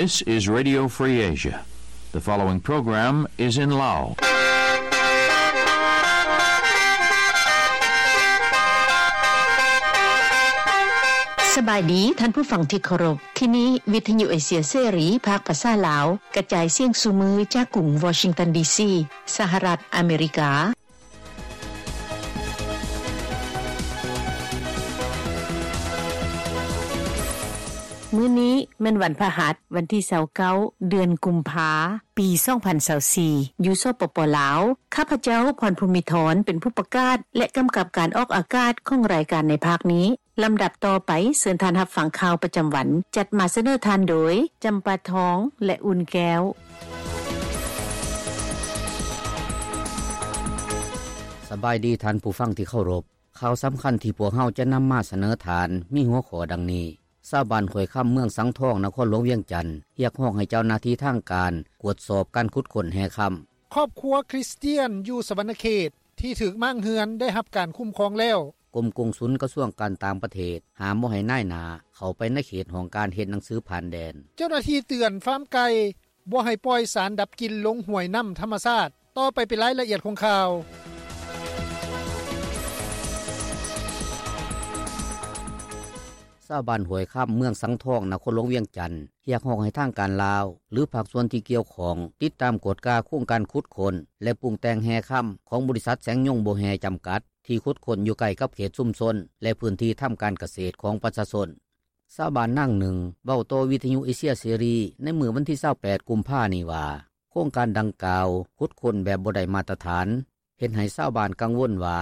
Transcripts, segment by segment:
This is Radio Free Asia. The following program is in Lao. ສະບາຍດີທ່ານຜູ້ຟັງທີ່ເຄົາລົບ. ທີ່ນີ້ວິທະຍຸເອເຊຍເສລີ ພາກພາສາລາວ ກະຈາຍສຽງສູ່ມື້ຈາກກຸງວໍຊິງຕັນ ດີຊີ ສະຫະລັດອາເມລິກາ. ມື້ນີ້ແມ່ນວັນພະຫັດ ວັນທີຊາວເກົ້າ ເດືອນກຸມພາ ປີສອງພັນຊາວສີ່ ຢູ່ ສປປ ລາວ. ຂ້າພະເຈົ້າ ພອນພູມມິທອນ ເປັນຜູ້ປະກາດ ແລະ ກຳກັບການອອກອາກາດຂອງລາຍການໃນພາກນີ້. ລຳດັບຕໍ່ໄປ ເຊີນທ່ານຮັບຟັງຂ່າວປະຈຳວັນ ຈັດມາສະເໜີທ່ານໂດຍ ຈຳປາທອງ ແລະ ອຸ່ນແກ້ວ. ສະບາຍດີທ່ານຜູ້ຟັງທີ່ເຄົາລົບ. ຂ່າວສຳຄັນທີ່ພວກເຮົາຈະນຳມາສະເໜີທ່ານ ມີຫົວຂໍ້ດັ່ງນີ້: ຊາວບ້ານຫ້ວຍຄຳ ເມືອງສັງທອງ ນະຄອນຫຼວງວຽງຈັນ ຮຽກຮ້ອງໃຫ້ເຈົ້າໜ້າທີ່ທາງການ ກວດສອບການຂຸດຄົ້ນແຮ່ຄຳ. ຄອບຄົວຄຣິສຕຽນຢູ່ສະຫວັນນະເຂດ ທີ່ຖືກມ້າງເຮືອນ ໄດ້ຮັບການຄຸ້ມຄອງແລ້ວ. ກົມກົງສຸນກະຊວງການຕ່າງປະເທດ ຫ້າມບໍ່ໃຫ້ນາຍໜ້າເຂົ້າໄປໃນເຂດຫ້ອງການເຮັດໜັງສືຜ່ານແດນ. ເຈົ້າໜ້າທີ່ເຕືອນຟາມໄກ່ ບໍ່ໃຫ້ປ່ອຍສານດັບກິ່ນລົງຫ້ວຍນ້ຳທຳມະຊາດ. ຕໍ່ໄປເປັນລາຍລະອຽດຂອງຂ່າວ. ຊາວບ້ານຫ້ວຍຄຳ ເມືອງສັງທອງ ນະຄອນຫຼວງວຽງຈັນ ຮຽກຮ້ອງໃຫ້ທາງການລາວ ຫຼື ພາກສ່ວນທີ່ກ່ຽວຂ້ອງ ຕິດຕາມກວດກາໂຄງການຂຸດຄົ້ນ ແລະ ປຸງແຕ່ງແຮ່ຄຳ ຂອງບໍລິສັດແສງຍົງບໍ່ແຮ່ ຈຳກັດ ທີ່ຂຸດຄົ້ນຢູ່ໃກ້ກັບເຂດຊຸມຊົນ ແລະ ພື້ນທີ່ທຳການກະເສດຂອງປະຊາຊົນ. ຊາວບ້ານນາງໜຶ່ງ ເວົ້າຕໍ່ວິທະຍຸເອເຊຍເສລີ ໃນມື້ວັນທີຊາວແປດ ກຸມພານີ້ວ່າ ໂຄງການດັ່ງກ່າວ ຂຸດຄົ້ນແບບບໍ່ໄດ້ມາດຕະຖານ ເຮັດໃຫ້ຊາວບ້ານກັງວົນວ່າ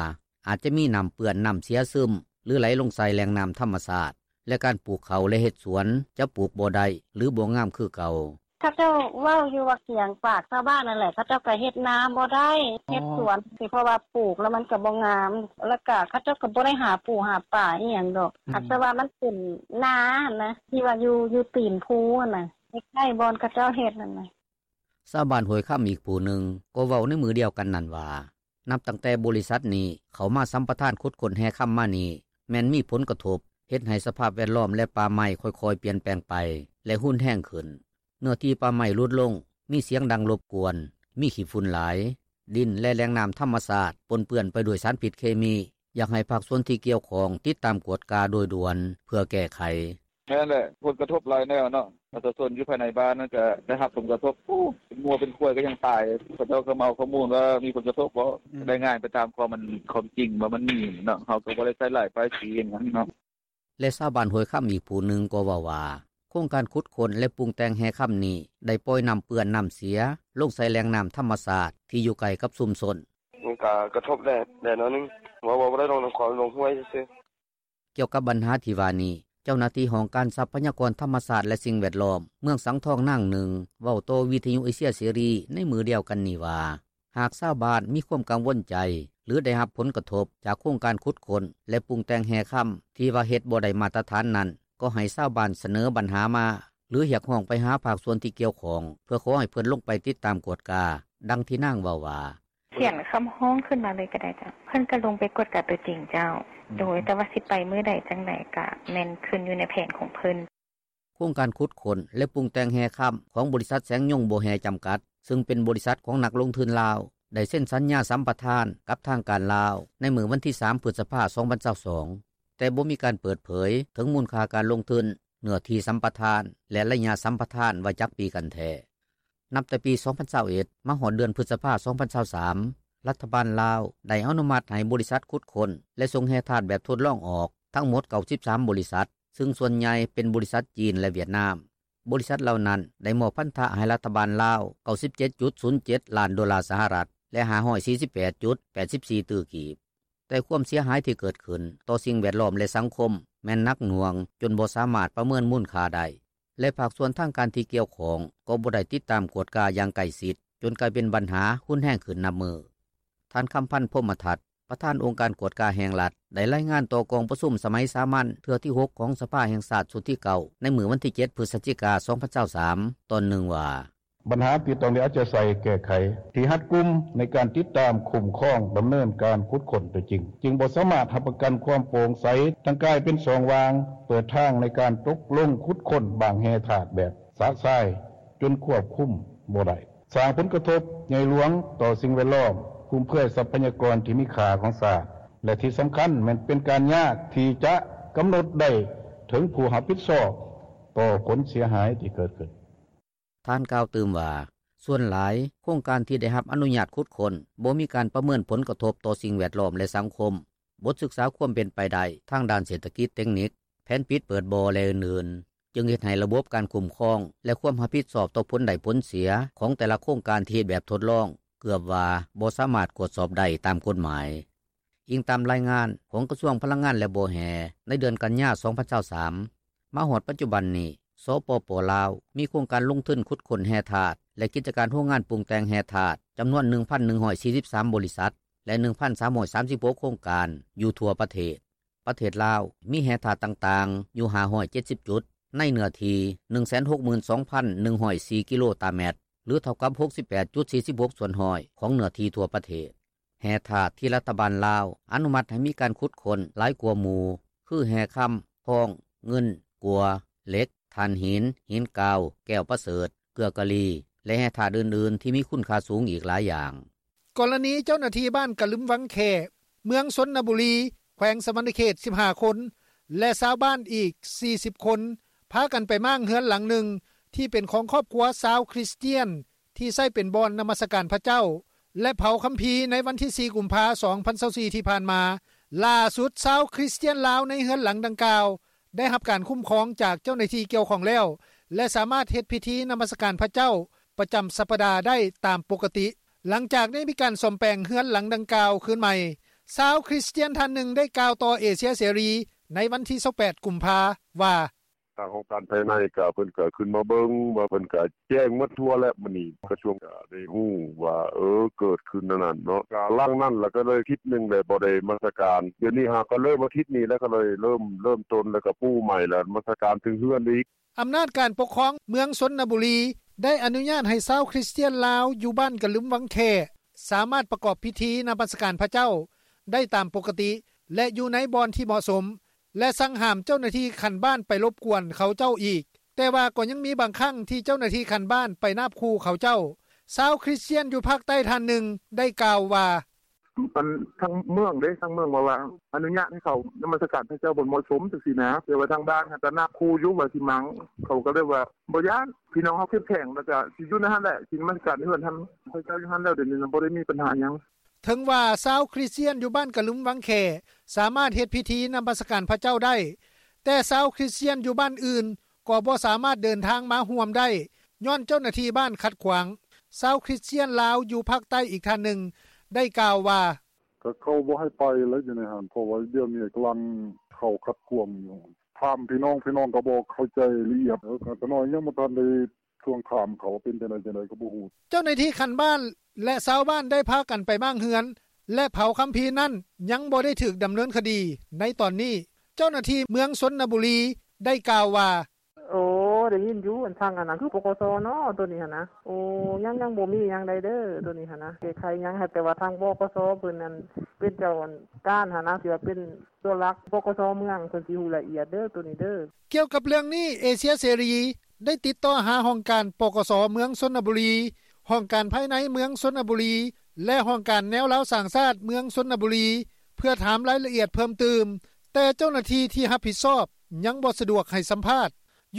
ອາດຈະມີນ້ຳເປື້ອນ, ນ້ຳເສຍຊຶມ ຫຼື ໄຫຼລົງໃສ່ແຫຼ່ງນ້ຳທຳມະຊາດ ແລະ ການປູກເຂົ້າ ແລະ ເຮັດສວນ ຈະປູກບໍ່ໄດ້ ຫຼື ບໍ່ງາມຄືເກົ່າ. ເຂົາເຈົ້າເວົ້າຢູ່ວ່າກຽງປາກຊາວບ້ານນັ້ນແຫຼະ ເຂົາເຈົ້າກະເຮັດນາບໍ່ໄດ້ ເຮັດສວນ ເພາະວ່າປູກແລ້ວມັນກະບໍ່ງາມ ແລ້ວກະເຂົາເຈົ້າກະບໍ່ໄດ້ຫາປູຫາປາອີ່ຫຍັງດອກ ອືມ ອາດຈະວ່າມັນເປັນນາຫັ້ນນະ ທີ່ວ່າຢູ່ ຢູ່ຕີນພູຫັ້ນນະ ໃກ້ໆບ່ອນເຂົາເຈົ້າເຮັດຫັ້ນນະ. ຊາວບ້ານຫ້ວຍຄຳອີກຜູ້ໜຶ່ງ ກໍເວົ້າໃນມື້ດຽວກັນນັ້ນວ່າ ນັບຕັ້ງແຕ່ບໍລິສັດນີ້ເຂົ້າມາສຳປະທານຂຸດຄົ້ນແຮ່ຄຳມານີ້ ແມ່ນມີຜົນກະທົບ ເຮັດໃຫ້ສະພາບແວດລ້ອມ ແລະ ປ່າໄມ້ຄ່ອຍໆປ່ຽນແປງໄປ ແລະ ຮຸນແຮງຂຶ້ນ. ເນື້ອທີ່ປ່າໄມ້ຫຼຸດລົງ, ມີສຽງດັງລົບກວນ, ມີຂີ້ຝຸ່ນຫຼາຍ, ດິນ ແລະ ແຫຼ່ງນ້ຳທຳມະຊາດປົນເປື້ອນໄປດ້ວຍສານພິດເຄມີ. ຢາກໃຫ້ພາກສ່ວນທີ່ກ່ຽວຂ້ອງຕິດຕາມກວດກາໂດຍດ່ວນເພື່ອແກ້ໄຂ. ແມ່ນແຫຼະ ຜົນກະທົບຫຼາຍແນວເນາະ ປະຊາຊົນຢູ່ພາຍໃນບ້ານນັ້ນກະໄດ້ຮັບຜົນກະທົບ ໂອ້ ເປັນງົວເປັນຄວາຍກະຍັງຕາຍ ເຂົາເຈົ້າກະມາເອົາຂໍ້ມູນວ່າມີຜົນກະທົບບໍ່ ອືມ ລາຍງານໄປຕາມຄວາມ ຄວາມຈິງວ່າມັນມີເນາະ ເຮົາກະບໍ່ໄດ້ໃສ່ຮ້າຍປ້າຍສີຫຍັງເນາະ. ແລະ ຊາວບ້ານຫ້ວຍຄຳອີກຜູ້ໜຶ່ງກໍເວົ້າວ່າ ໂຄງການຂຸດຄົ້ນ ແລະ ປຸງແຕ່ງແຮ່ຄຳນີ້ ໄດ້ປ່ອຍນ້ຳເປື້ອນນ້ຳເສຍລົງໃສ່ແຫຼ່ງນ້ຳທຳມະຊາດທີ່ຢູ່ໃກ້ກັບຊຸມຊົນ. ມັນກະກະທົບແດ່ ແດ່ໜ້ອຍໜຶ່ງ ເວົ້າ ເວົ້າບໍ່ໄດ້ ລົງນ້ຳຂອງລົງຫ້ວຍຊື່ໆ. ກ່ຽວກັບບັນຫາທີ່ວ່ານີ້ ເຈົ້າໜ້າທີ່ຫ້ອງການຊັບພະຍາກອນທຳມະຊາດ ແລະ ສິ່ງແວດລ້ອມ ເມືອງສັງທອງນາງໜຶ່ງ ເວົ້າຕໍ່ວິທະຍຸເອເຊຍເສລີໃນມື້ດຽວກັນນີ້ວ່າ ຫາກຊາວບ້ານມີຄວາມກັງວົນໃຈ ຫຼື ໄດ້ຮັບຜົນກະທົບຈາກໂຄງການຂຸດຄົ້ນ ແລະ ປຸງແຕ່ງແຮ່ຄຳທີ່ວ່າເຮັດບໍ່ໄດ້ມາດຕະຖານນັ້ນ ກໍໃຫ້ຊາວບ້ານສະເໜີບັນຫາມາ ຫຼື ຮຽກຮ້ອງໄປຫາພາກສ່ວນທີ່ກ່ຽວຂ້ອງ ເພື່ອຂໍໃຫ້ເພິ່ນລົງໄປຕິດຕາມກວດກາ. ດັ່ງທີ່ນາງເວົ້າວ່າ ຂຽນຄຳຮ້ອງຂຶ້ນມາເລີຍກະໄດ້ເຈົ້າ ເພິ່ນກະລົງໄປກວດກາຕົວຈິງເຈົ້າ. ໂດຍ ແຕ່ວ່າຊິໄປມື້ໃດຈັ່ງໃດກະແມ່ນຂຶ້ນຢູ່ໃນແຜນຂອງເພິ່ນ. ໂຄງການຂຸດຄົ້ນ ແລະ ປຸງແຕ່ງແຮ່ຄຳຂອງບໍລິສັດແສງຍົງບໍ່ແຮ່ ຈຳກັດ ຊຶ່ງເປັນບໍລິສັດຂອງນັກລົງທຶນລາວ ໄດ້ເຊັນສັນຍາສຳປະທານກັບທາງການລາວໃນມື້ວັນທີສາມ ພຶດສະພາ ສອງພັນຊາວສອງ ແຕ່ບໍ່ມີການເປີດເຜີຍເຖິງມູນຄ່າການລົງທຶນ, ເນື້ອທີ່ສຳປະທານ ແລະ ໄລຍະສຳປະທານວ່າຈັກປີກັນແທ້. ນັບແຕ່ປີສອງພັນຊາວເອັດ ມາຮອດເດືອນພຶດສະພາ ສອງພັນຊາວສາມ ລັດຖະບານລາວໄດ້ອະນຸມັດໃຫ້ບໍລິສັດຂຸດຄົ້ນ ແລະ ສົ່ງແຮ່ທາດແບບທົດລອງອອກທັງໝົດເກົ້າສິບສາມບໍລິສັດ ຊຶ່ງສ່ວນໃຫຍ່ເປັນບໍລິສັດຈີນ ແລະ ຫວຽດນາມ. ບໍລິສັດເຫຼົ່ານັ້ນໄດ້ມອບພັນທະໃຫ້ລັດຖະບານລາວ ເກົ້າສິບເຈັດຈຸດສູນເຈັດລ້ານໂດລາສະຫະລັດ ແລະ ຫ້າຮ້ອຍສີ່ສິບແປດຈຸດແປດສິບສີ່ຕື້ກີບ. ແຕ່ຄວາມເສຍຫາຍທີ່ເກີດຂຶ້ນຕໍ່ສິ່ງແວດລ້ອມ ແລະ ສັງຄົມ ແມ່ນໜັກໜ່ວງຈົນບໍ່ສາມາດປະເມີນມູນຄ່າໄດ້ ແລະ ພາກສ່ວນທາງການທີ່ກ່ຽວຂ້ອງກໍບໍ່ໄດ້ຕິດຕາມກວດກາຢ່າງໃກ້ຊິດ ຈົນກາຍເປັນບັນຫາຮຸນແຮງຂຶ້ນນັບມື້. ທ່ານ ຄຳພັນ ພົມມະທັດ ປະທານອົງການກວດກາແຫ່ງລັດ ໄດ້ລາຍງານຕໍ່ກອງປະຊຸມສະໄໝສາມັນເທື່ອທີຫົກຂອງສະພາແຫ່ງຊາດຊຸດທີເກົ້າ ໃນມື້ວັນທີເຈັດ ພຶສຈິກາ ສອງພັນຊາວສາມ ຕອນໜຶ່ງວ່າ ບັນຫາທີ່ຕ້ອງໄດ້ເອົາໃຈໃສ່ແກ້ໄຂ ທີ່ຮັດກຸມໃນການຕິດຕາມ, ຄຸ້ມຄອງ, ດຳເນີນການຂຸດຄົ້ນຕົວຈິງ ຈຶ່ງບໍ່ສາມາດຮັບປະກັນຄວາມໂປ່ງໃສ ທັງກາຍເປັນຊ່ອງວ່າງ ເປີດທາງໃນການຕົກລົງຂຸດຄົ້ນບາງແຮ່ທາດແບບ ປະຊາຍ ຈົນຄວບຄຸມບໍ່ໄດ້, ສ້າງຜົນກະທົບໃຫຍ່ຫຼວງຕໍ່ສິ່ງແວດລ້ອມ, ຟຸມເຟືອຍຊັບພະຍາກອນທີ່ມີຄ່າຂອງຊາດ ແລະ ທີ່ສຳຄັນແມ່ນເປັນການຍາກທີ່ຈະກຳນົດໄດ້ເຖິງຜູ້ຮັບຜິດຊອບຕໍ່ຜົນເສຍຫາຍທີ່ເກີດຂຶ້ນ. ທ່ານກ່າວຕື່ມວ່າ ສ່ວນຫຼາຍໂຄງການທີ່ໄດ້ຮັບອະນຸຍາດຂຸດຄົ້ນ ບໍ່ມີການປະເມີນຜົນກະທົບຕໍ່ສິ່ງແວດລ້ອມ ແລະ ສັງຄົມ, ບົດສຶກສາຄວາມເປັນໄປໄດ້ທາງດ້ານເສດຖະກິດເຕັກນິກ, ແຜນປິດເປີດບໍ່ ແລະ ອື່ນໆ ຈຶ່ງເຮັດໃຫ້ລະບົບການຄຸ້ມຄອງ ແລະ ຄວາມຮັບຜິດຊອບຕໍ່ຜົນໄດ້ຜົນເສຍຂອງແຕ່ລະໂຄງການທີ່ເຮັດແບບທົດລອງ ເກືອບວ່າບໍ່ສາມາດກວດສອບໄດ້ຕາມກົດໝາຍ. ອີງຕາມລາຍງານຂອງກະຊວງພະລັງງານ ແລະ ບໍ່ແຮ່ ໃນເດືອນກັນຍາ ສອງພັນຊາວສາມ ມາຮອດປັດຈຸບັນນີ້ ສປປ ລາວ ມີໂຄງການລົງທຶນຂຸດຄົ້ນແຮ່ທາດ ແລະ ກິດຈະການໂຮງງານປຸງແຕ່ງແຮ່ທາດ ຈຳນວນ ໜຶ່ງພັນໜຶ່ງຮ້ອຍສີ່ສິບສາມ ບໍລິສັດ ແລະ ໜຶ່ງພັນສາມຮ້ອຍສາມສິບຫົກ ໂຄງການ ຢູ່ທົ່ວປະເທດ. ປະເທດລາວມີແຮ່ທາດຕ່າງໆຢູ່ ຫ້າຮ້ອຍເຈັດສິບ ຈຸດ ໃນເນື້ອທີ່ ໜຶ່ງແສນຫົກໝື່ນສອງພັນໜຶ່ງຮ້ອຍສີ່ ກິໂລຕາແມັດ ຫຼື ເທົ່າກັບ ຫົກສິບແປດຈຸດສີ່ສິບຫົກ ສ່ວນຮ້ອຍຂອງເນື້ອທີ່ທົ່ວປະເທດ. ແຮ່ທາດທີ່ລັດຖະບານລາວອະນຸມັດໃຫ້ມີການຂຸດຄົ້ນຫຼາຍກວ່າໝູ່ ຄື ແຮ່ຄຳ, ທອງ, ເງິນ, ກົ່ວ, ເຫຼັກ, ຖ່ານຫີນ, ຫີນກາວ, ແກ້ວປະເສີດ, ເກືອກາລີ ແລະ ແຮ່ທາດອື່ນໆທີ່ມີຄຸນຄ່າສູງອີກຫຼາຍຢ່າງ. ກໍລະນີເຈົ້າໜ້າທີ່ບ້ານກະລຶມວັງແຂ້ ເມືອງຊົນນະບູລີ ແຂວງສະຫວັນນະເຂດ ສິບຫ້າຄົນ ແລະ ຊາວບ້ານອີກ ສີ່ສິບຄົນ ພາກັນໄປມ້າງເຮືອນຫຼັງໜຶ່ງ ທີ່ເປັນຂອງຄອບຄົວຊາວຄຣິສຕຽນ ທີ່ໃຊ້ເປັນບ່ອນນະມັດສະການພະເຈົ້າ ແລະ ເຜົາຄຳພີໃນວັນທີ ສີ່ ກຸມພາ ສອງພັນຊາວສີ່ ທີ່ຜ່ານມາ. ຫຼ້າສຸດ ຊາວຄຣິສຕຽນລາວໃນເຮືອນຫຼັງດັ່ງກ່າວ ໄດ້ຮັບການຄຸ້ມຄອງຈາກເຈົ້າໜ້າທີ່ກ່ຽວຂ້ອງແລ້ວ ແລະ ສາມາດເຮັດພິທີນະມັດສະການພະເຈົ້າປະຈຳສັບປະດາໄດ້ຕາມປົກກະຕິ ຫຼັງຈາກໄດ້ມີການສ້ອມແປງເຮືອນຫຼັງດັ່ງກ່າວຄືນໃໝ່. ຊາວຄຣິສຕຽນທ່ານໜຶ່ງໄດ້ກ່າວຕໍ່ເອເຊຍເສລີໃນວັນທີ ຊາວແປດ ກຸມພາ ວ່າ: ທາງຫ້ອງການພາຍໃນກະ ເພິ່ນກະຂຶ້ນມາເບິ່ງວ່າ ເພິ່ນກະແຈ້ງໝົດທົ່ວແລ້ວ. ມື້ນີ້ກະຊວງກະໄດ້ຮູ້ວ່າ ເອີ ເກີດຂຶ້ນອັນນັ້ນເນາະ ກະຫຼັງນັ້ນລະກະເລີຍທິດໜຶ່ງແລ້ວ ບໍ່ໄດ້ນະມັດສະການ. ດຽວນີ້ຫາກະເລີ່ມອາທິດນີ້ແລ້ວ ກະເລີຍເລີ່ມ ເລີ່ມຕົ້ນ ແລ້ວກະປູໃໝ່ ແລ້ວນະມັດສະການເຖິງເຮືອນອີກ. ອຳນາດການປົກຄອງເມືອງຊົນນະບູລີ ໄດ້ອະນຸຍາດໃຫ້ຊາວຄຣິສຕຽນລາວຢູ່ບ້ານກະລຶມວັງແຂ້ ສາມາດປະກອບພິທີນະມັດສະການພະເຈົ້າໄດ້ຕາມປົກກະຕິ ແລະ ຢູ່ໃນບ່ອນທີ່ເໝາະສົມ ແລະ ສັ່ງຫ້າມເຈົ້າໜ້າທີ່ຂັ້ນບ້ານໄປລົບກວນເຂົາເຈົ້າອີກ, ແຕ່ວ່າກໍຍັງມີບາງຄັ້ງທີ່ເຈົ້າໜ້າທີ່ຂັ້ນບ້ານໄປນາບຂູ່ເຂົາເຈົ້າ. ຊາວຄຣິສຕຽນຢູ່ພາກໃຕ້ທ່ານໜຶ່ງໄດ້ກ່າວວ່າ: ທາງເມືອງເດ້ ທາງເມືອງວ່າ ວ່າອະນຸຍາດໃຫ້ເຂົ້ານະມັດສະການພະເຈົ້າບໍ່ເໝາະສົມຈັ່ງຊີ້ນະ, ແຕ່ວ່າທາງບ້ານຫັ້ນກະນາບຂູ່ຢູ່ວ່າຊິມ້າງ, ເຂົາກະເລີຍວ່າບໍ່ຢ້ານ, ພີ່ນ້ອງເຮົາເຂັ້ມແຂງ ແລ້ວກະຊິຢູ່ໃນຫັ້ນແຫຼະ ຊິນະມັດສະການເຮືອນຫັ້ນ ເຂົາເຈົ້າຢູ່ຫັ້ນແລ້ວ ດຽວນີ້ນະບໍ່ໄດ້ມີບັນຫາຫຍັງ. ເຖິງວ່າຊາວຄຣິສຕຽນຢູ່ບ້ານກະລຶມວັງແຂ້ ສາມາດເຮັດພິທີນະມັດສະການພະເຈົ້າໄດ້, ແຕ່ຊາວຄຣິສຕຽນຢູ່ບ້ານອື່ນກໍບໍ່ສາມາດເດີນທາງມາຮ່ວມໄດ້ ຍ້ອນເຈົ້າໜ້າທີ່ບ້ານຂັດຂວາງ. ຊາວຄຣິສຕຽນລາວຢູ່ພາກໃຕ້ອີກທ່ານໜຶ່ງໄດ້ກ່າວວ່າ: ກະເຂົາບໍ່ໃຫ້ໄປແລ້ວຢູ່ໃນຫັ້ນ ເພາະວ່າດຽວນີ້ກຳລັງເຂົາຂັດຂວາງຢູ່ ຖາມພີ່ນ້ອງ ພີ່ນ້ອງກະບໍ່ເຂົ້າໃຈລະອຽດ ເອີ ກະນ້ອຍຍັງບໍ່ທັນໄດ້ ທວງຖາມເຂົາວ່າເປັນຈັ່ງໃດ ຈັ່ງໃດກະບໍ່ຮູ້. ເຈົ້າໜ້າທີ່ຂັ້ນບ້ານ ແລະ ຊາວບ້ານໄດ້ພາກັນໄປມ້າງເຮືອນ ແລະ ເຜົາຄຳພີນັ້ນ ຍັງບໍ່ໄດ້ຖືກດຳເນີນຄະດີໃນຕອນນີ້. ເຈົ້າໜ້າທີ່ເມືອງຊົນນະບູລີ ໄດ້ກ່າວວ່າ: ໂອ້ ໄດ້ຍິນຢູ່ ທາງອັນນັ້ນຄື ປກສ ເນາະ ໂຕນີ້ຫັ້ນນະ. ໂອ້ ຍັງ ຍັງບໍ່ມີຫຍັງໃດເດີ ໂຕນີ້ຫັ້ນນະ ແກ້ໄຂຫຍັງ ແຕ່ວ່າທາງ ປກສ ເພິ່ນນັ້ນ ເປັນເຈົ້າການຫັ້ນນະ ທີ່ວ່າເປັນ ຕົວຫຼັກ ປກສ ເມືອງ ເພິ່ນຊິຮູ້ລະອຽດເດີ ໂຕນີ້ເດີ. ກ່ຽວກັບເລື່ອງນີ້ ເອເຊຍເສລີ ໄດ້ຕິດຕໍ່ຫາຫ້ອງການ ປກສ ເມືອງຊົນນະບູລີ, ຫ້ອງການພາຍໃນເມືອງຊົນນະບູລີ ແລະ ຫ້ອງການແນວລາວສ້າງຊາດເມືອງຊົນນະບູລີ ເພື່ອຖາມລາຍລະອຽດເພີ່ມຕື່ມ, ແຕ່ເຈົ້າໜ້າທີ່ທີ່ຮັບຜິດຊອບຍັງບໍ່ສະດວກໃຫ້ສຳພາດ.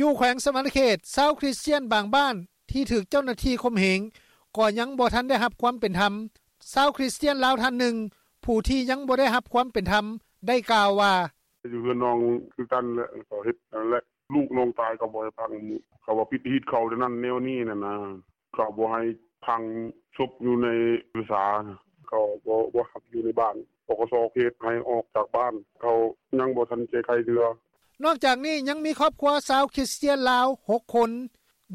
ຢູ່ແຂວງສະຫວັນນະເຂດ ຊາວຄຣິສຕຽນບາງບ້ານທີ່ຖືກເຈົ້າໜ້າທີ່ຂົ່ມເຫງ ກໍຍັງບໍ່ທັນໄດ້ຮັບຄວາມເປັນທຳ. ຊາວຄຣິສຕຽນລາວທ່ານໜຶ່ງ ຜູ້ທີ່ຍັງບໍ່ໄດ້ຮັບຄວາມເປັນທຳ ໄດ້ກ່າວວ່າ: ຢູ່ເຮືອນນ້ອງຄືກັນແຫຼະ ເຂົາເຮັດຫັ້ນແຫຼະ ລູກນ້ອງຕາຍເຂົາບໍ່ໃຫ້ຝັງ ເຂົາວ່າຜິດຮີດເຂົາແນວນັ້ນແນວນີ້ຫັ້ນນະ ເຂົາບໍ່ໃຫ້ຝັງສົບຢູ່ໃນເຮືອນສາ ເຂົາບໍ່ ບໍ່ຮັບຢູ່ໃນບ້ານ ປກສ ເຂດໃຫ້ອອກຈາກບ້ານ ເຂົາຍັງບໍ່ທັນແກ້ໄຂເທື່ອ. ນອກຈາກນີ້ ຍັງມີຄອບຄົວຊາວຄຣິສຕຽນລາວ ຫົກຄົນ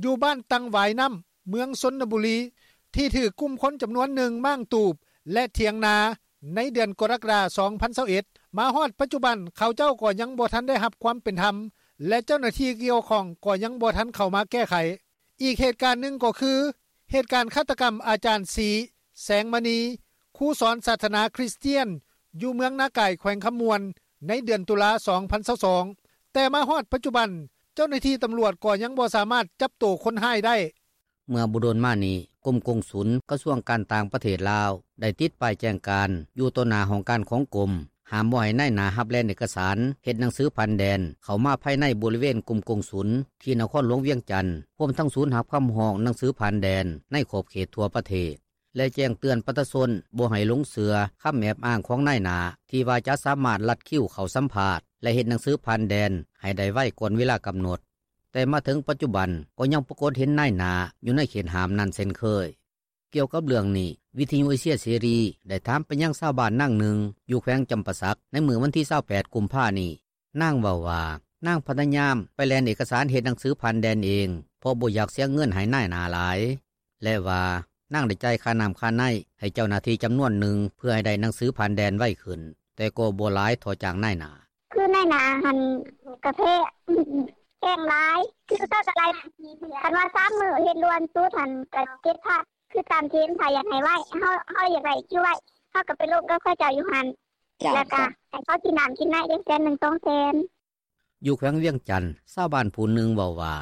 ຢູ່ບ້ານຕັງຫວາຍນ້ຳ ເມືອງຊົນນະບູລີ ທີ່ຖືກກຸ່ມຄົນຈຳນວນໜຶ່ງມ້າງຕູບ ແລະ ຖຽງນາ ໃນເດືອນກໍລະກະດາ ສອງພັນຊາວເອັດ ມາຮອດປັດຈຸບັນ ເຂົາເຈົ້າກໍຍັງບໍ່ທັນໄດ້ຮັບຄວາມເປັນທຳ ແລະ ເຈົ້າໜ້າທີ່ກ່ຽວຂ້ອງກໍຍັງບໍ່ທັນເຂົ້າມາແກ້ໄຂ. ອີກເຫດການໜຶ່ງກໍຄື ເຫດການຄາດຕະກຳອາຈານ ສີ ແສງມະນີ ຄູສອນສາສະໜາຄຣິສຕຽນ ຢູ່ເມືອງນາກາຍ ແຂວງຄຳມ່ວນ ໃນເດືອນຕຸລາ ສອງພັນຊາວສອງ ແຕ່ມາຮອດປັດຈຸບັນ ເຈົ້າໜ້າທີ່ຕຳຫຼວດ ກໍຍັງບໍ່ສາມາດຈັບໂຕຄົນຮ້າຍໄດ້. ເມື່ອບໍ່ດົນມານີ້ ກົມກົງສຸນ ກະຊວງການຕ່າງປະເທດລາວ ໄດ້ຕິດປ້າຍແຈ້ງການ ຢູ່ຕໍ່ໜ້າຫ້ອງການຂອງກົມ ຫ້າມບໍ່ໃຫ້ນາຍໜ້າຮັບແລ່ນເອກະສານ ເຮັດໜັງສືຜ່ານແດນ ເຂົ້າມາພາຍໃນບໍລິເວນກົມກົງສຸນ ທີ່ນະຄອນຫຼວງວຽງຈັນ ຮວມທັງສູນຮັບຄຳຮ້ອງໜັງສືຜ່ານແດນ ໃນຂອບເຂດທົ່ວປະເທດ ແລະແຈ້ງເຕືອນປະຊາຊົນ ບໍ່ໃຫ້ຫຼົງເຊື່ອຄຳແອບອ້າງຂອງນາຍໜ້າ ທີ່ວ່າຈະສາມາດລັດຄິວເຂົ້າສຳພາດ ແລະເຮັດໜັງສືຜ່ານແດນ ໃຫ້ໄດ້ໄວກ່ອນເວລາກຳນົດ. ແຕ່ມາເຖິງປັດຈຸບັນ ກໍຍັງປາກົດເຫັນນາຍໜ້າ ຢູ່ໃນເຂດຫ້າມນັ້ນເຊັ່ນເຄີຍ. ກ່ຽວກັບເລື່ອງນີ້ ວິທຍຸເອເຊຍເສລີ ໄດ້ຖາມໄປຍັງຊາວບ້ານນາງໜຶ່ງ ຢູ່ແຂວງຈຳປາສັກ ໃນມື້ວັນທີ ຊາວແປດ ກຸມພານີ້. ນາງເວົ້າວ່າ ນາງພະຍາຍາມໄປແລ່ນເອກະສານເຮັດໜັງສືຜ່ານແດນເອງ ເພາະບໍ່ຢາກເສຍເງິນໃຫ້ນາຍໜ້າຫຼາຍ ແລະວ່າ ນາງໄດ້ຈ່າຍຄ່ານໍ້າຄ່າໃນ ໃຫ້ເຈົ້າໜ້າທີ່ຈຳນວນໜຶ່ງ ເພື່ອໃຫ້ໄດ້ໜັງສືຜ່ານແດນໄວຂຶ້ນ ແຕ່ກໍບໍ່ຫຼາຍເທົ່າຈ້າງນາຍໜ້າ. ຄືນາຍໜ້າຫັ້ນກະແພງ ແພງຫຼາຍ ຄືເຂົາກະໄລ່ ຄັນວ່າສາມມື້ເຮັດດ່ວນສຸດຫັ້ນກະເຈັດພັນ ຄືຕາມເກນ ຖ້າຢາກໃຫ້ໄວ ເຮົາ ເຮົາຢາກໄດ້ຄິວໄວ ເຮົາກະໄປລົມກັບເຂົາເຈົ້າຢູ່ຫັ້ນ ເຈົ້າ ແລ້ວກະໃຫ້ເຂົາກິນນໍ້າກິນໃນຈັກແສນໜຶ່ງ ສອງແສນ. ຢູ່ແຂວງວຽງຈັນ ຊາວບ້ານຜູ້ໜຶ່ງເວົ້າວ່າ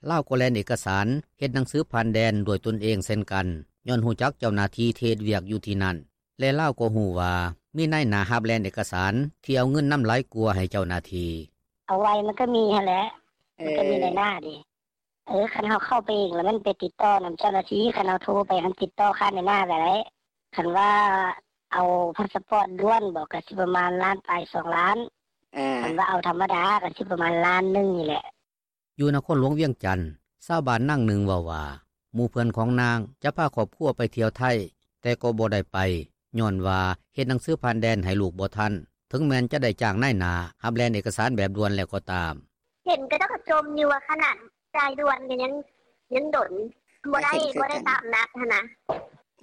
ລາວກໍແລ່ນເອກະສານເຮັດໜັງສືຜ່ານແດນດ້ວຍຕົນເອງເຊັ່ນກັນ ຍ້ອນຮູ້ຈັກເຈົ້າໜ້າທີ່ທີ່ເຮັດວຽກຢູ່ທີ່ນັ້ນ ແລະລາວກໍຮູ້ວ່າ ມີນາຍໜ້າຮັບແລ່ນເອກະສານ ທີ່ເອົາເງິນນຳຫຼາຍກວ່າໃຫ້ເຈົ້າໜ້າທີ່. ເອົາໄວມັນກະມີຫັ້ນແຫຼະ ມັນກະມີນາຍໜ້າເດ້. ເອີ ຄັນເຮົາເຂົ້າໄປເອງລະແມ່ນໄປຕິດຕໍ່ນຳເຈົ້າໜ້າທີ່ ຄັນເຮົາໂທໄປຫັ້ນຕິດຕໍ່ຄານນາຍໜ້າກະໄດ້ ຄັນວ່າເອົາພາສປອດດ່ວນບໍ ກະຊິປະມານລ້ານປາຍ ສອງລ້ານ ຄັນວ່າເອົາທຳມະດາກະຊິປະມານລ້ານໜຶ່ງນີ້ແຫຼະ. ຢູ່ນະຄອນຫຼວງວຽງຈັນ ຊາວບ້ານນາງໜຶ່ງເວົ້າວ່າ ໝູ່ເພື່ອນຂອງນາງຈະພາຄອບຄົວໄປທ່ຽວໄທ ແຕ່ກໍບໍ່ໄດ້ໄປ ຍ້ອນວ່າເຮັດໜັງສືຜ່ານແດນໃຫ້ລູກບໍ່ທັນ ເຖິງແມ່ນຈະໄດ້ຈ້າງນາຍໜ້າຮັບແລ່ນເອກະສານແບບດ່ວນແລ້ວກໍຕາມ. ເຫັນເຂົາເຈົ້າກະຈົ່ມຢູ່ວ່າຂະໜາດຈ່າຍດ່ວນກະຍັງດົນ ບໍ່ໄດ້ ບໍ່ໄດ້ຕາມນັດຫັ້ນນະ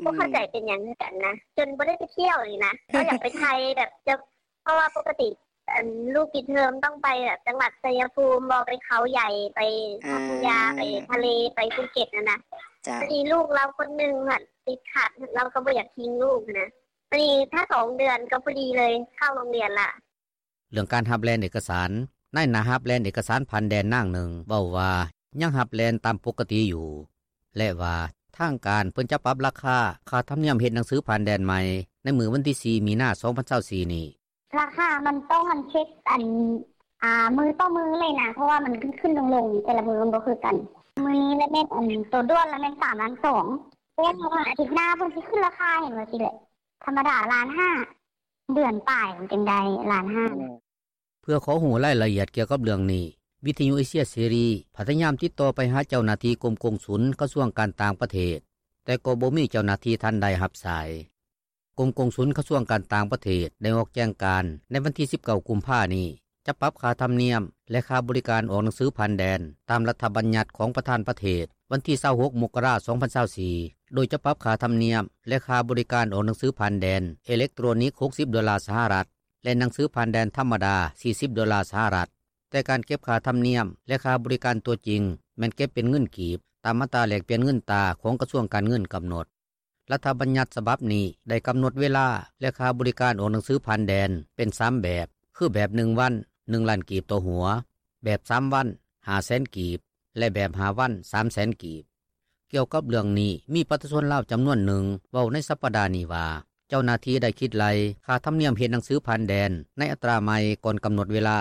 ບໍ່ເຂົ້າໃຈເປັນຫຍັງຄືກັນນະ ຈົນບໍ່ໄດ້ໄປທ່ຽວນີ້ນະ ເຮົາຢາກໄປໄທແບບ ເພາະວ່າປົກກະຕິລູກປິດເທີມຕ້ອງໄປແບບຈັງຫວັດໄຊຍະພູມບໍ ໄປເຂົາໃຫຍ່ ໄປພັດທະຍາ ໄປທະເລ ໄປພູເກັດຫັ້ນນະ ບາດນີ້ລູກລາວຄົນໜຶ່ງຫັ້ນຕິດຂັດ ລາວກະບໍ່ຢາກຖິ້ມລູກຫັ້ນນະ ບາດນີ້ຖ້າສອງເດືອນກະພໍດີເລີຍເຂົ້າໂຮງຮຽນລະ. ເລື່ອງການຮັບແລ່ນເອກະສານ ນາຍໜ້າຮັບແລ່ນເອກະສານຜ່ານແດນນາງໜຶ່ງເວົ້າວ່າ ຍັງຮັບແລ່ນຕາມປົກກະຕິຢູ່ ແລະວ່າ ທາງການເພິ່ນຈະປັບລາຄາ ຄ່າທຳນຽມເຮັດໜັງສືຜ່ານແດນໃໝ່ ໃນມື້ວັນທີ ສີ່ ມີນາ ສອງພັນຊາວສີ່ ນີ້. ລາຄາມັນຕ້ອງອັນເຊັກອັນ ອາ ມື້ຕໍ່ມື້ເລີຍນະ ເພາະວ່າມັນຂຶ້ນໆລົງໆ ແຕ່ລະມື້ມັນບໍ່ຄືກັນ ມື້ນີ້ລະແມ່ນອັນໂຕດ່ວນລະແມ່ນ ສາມລ້ານສອງ ແຕ່ວ່າອາທິດໜ້າເພິ່ນຊິຂຶ້ນລາຄາ ເຫັນວ່າຊີ້ແຫຼະ ທຳມະດາລ້ານຫ້າ ເດືອນປາຍມັນຈຶ່ງໄດ້ລ້ານຫ້າ. ເພື່ອຂໍຮູ້ລາຍລະອຽດກ່ຽວກັບເລື່ອງນີ້ ວິທຍຸເອເຊຍເສລີ ພະຍາຍາມຕິດຕໍ່ໄປຫາເຈົ້າໜ້າທີ່ກົມກົງສຸນ ກະຊວງການຕ່າງປະເທດ ແຕ່ກໍບໍ່ມີເຈົ້າໜ້າທີ່ທ່ານໃດຮັບສາຍ. ກົມກົງສຸນກະຊວງການຕ່າງປະເທດ ໄດ້ອອກແຈ້ງການໃນວັນທີ ສິບເກົ້າ ກຸມພານີ້ ຈະປັບຄ່າທຳນຽມ ແລະຄ່າບໍລິການອອກໜັງສືຜ່ານແດນ ຕາມລັດຖະບັນຍັດຂອງປະທານປະເທດ ວັນທີ ຊາວຫົກ ມົກກະລາ ສອງພັນຊາວສີ່ ໂດຍຈະປັບຄ່າທຳນຽມ ແລະຄ່າບໍລິການອອກໜັງສືຜ່ານແດນເອເລັກໂຕຣນິກ ຫົກສິບໂດລາສະຫະລັດ ແລະໜັງສືຜ່ານແດນທຳມະດາ ສີ່ສິບໂດລາສະຫະລັດ ແຕ່ການເກັບຄ່າທຳນຽມ ແລະຄ່າບໍລິການຕົວຈິງ ແມ່ນເກັບເປັນເງິນກີບ ຕາມອັດຕາແລກປ່ຽນເງິນຕາຂອງກະຊວງການເງິນກຳນົດ. ລັດຖະບັນຍັດສະບັບນີ້ ໄດ້ກຳນົດເວລາ ແລະຄ່າບໍລິການອອກໜັງສືຜ່ານແດນ ເປັນສາມແບບ ຄືແບບໜຶ່ງວັນ ໜຶ່ງລ້ານກີບຕໍ່ຫົວ, ແບບສາມວັນ ຫ້າແສນກີບ ແລະແບບຫ້າວັນ ສາມແສນກີບ. ກ່ຽວກັບເລື່ອງນີ້ ມີປະຊາຊົນລາວຈຳນວນໜຶ່ງ ເວົ້າໃນສັບປະດານີ້ວ່າ ເຈົ້າໜ້າທີ່ໄດ້ຄິດໄລ່ຄ່າທຳນຽມເຮັດໜັງສືຜ່ານແດນ ໃນອັດຕາໃໝ່ກ່ອນກຳນົດເວລາ.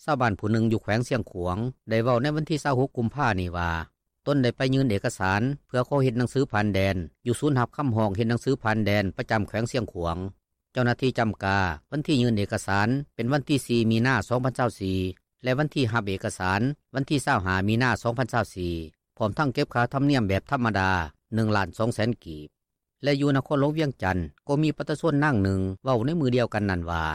ຊາວບ້ານຜູ້ໜຶ່ງຢູ່ແຂວງຊຽງຂວາງ ໄດ້ເວົ້າໃນວັນທີ ຊາວຫົກ ກຸມພານີ້ວ່າ ຕົນໄດ້ໄປຍື່ນເອກະສານ ເພື່ອຂໍເຮັດໜັງສືຜ່ານແດນ ຢູ່ສູນຮັບຄຳຮ້ອງເຮັດໜັງສືຜ່ານແດນ ປະຈຳແຂວງຊຽງຂວາງ. ເຈົ້າໜ້າທີ່ຈຳກາ ວັນທີຍື່ນເອກະສານ ເປັນວັນທີ ສີ່ ມີນາ ສອງພັນຊາວສີ່ ແລະວັນທີຮັບເອກະສານ ວັນທີ ຊາວຫ້າ ມີນາ ສອງພັນຊາວສີ່ ພ້ອມທັງເກັບຄ່າທຳນຽມແບບທຳມະດາ ໜຶ່ງລ້ານສອງແສນກີບ. ແລະຢູ່ນະຄອນຫຼວງວຽງຈັນ ກໍມີປະຊາຊົນນາງໜຶ່ງ ເວົ້າໃນມື້ດຽວກັນນັ້ນວ່າ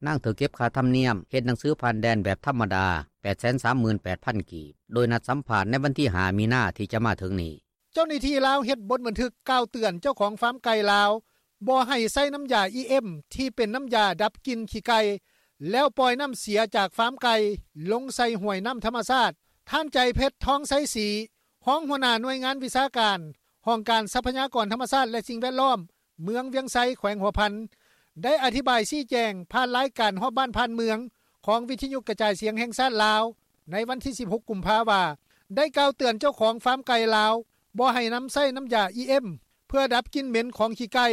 ນາງຖືກເກັບຄ່າທຳນຽມເຮັດໜັງສືຜ່ານແດນແບບທຳມະດາ ແປດແສນສາມໝື່ນແປດພັນກີບ ໂດຍນັດສຳພາດໃນວັນທີ ຫ້າ ມີນາ ທີ່ຈະມາເຖິງນີ້. ເຈົ້າໜ້າທີ່ລາວເຮັດບົດບັນທຶກກ່າວເຕືອນເຈົ້າຂອງຟາມໄກ່ລາວ ບໍ່ໃຫ້ໃຊ້ນໍ້າຢາອີເອັມ ທີ່ເປັນນໍ້າຢາດັບກິ່ນຂີ້ໄກ່ ແລ້ວປ່ອຍນໍ້າເສຍຈາກຟາມໄກ່ ລົງໃສ່ຫ້ວຍນໍ້າທຳມະຊາດ. ທ່ານ ໃຈເພັດ ທອງໄຊສີ ຮອງຫົວໜ້າໜ່ວຍງານວິຊາການ ຫ້ອງການຊັບພະຍາກອນທຳມະຊາດ ແລະສິ່ງແວດລ້ອມ ເມືອງວຽງໄຊ ແຂວງຫົວພັນ ໄດ້ອະທິບາຍຊີ້ແຈງ ຜ່ານລາຍການຮອບບ້ານຜ່ານເມືອງ ຂອງວິທຍຸກະຈາຍສຽງແຫ່ງຊາດລາວ ໃນວັນທີສິບຫົກ ກຸມພາ ວ່າ ໄດ້ກ່າວເຕືອນເຈົ້າຂອງຟາມໄກ່ລາວ ບໍ່ໃຫ້ນຳໃຊ້ນ້ຳຢາ ອີ ເອັມ ເພື່ອດັບກິ່ນເໝັນຂອງຂີ້ໄກ່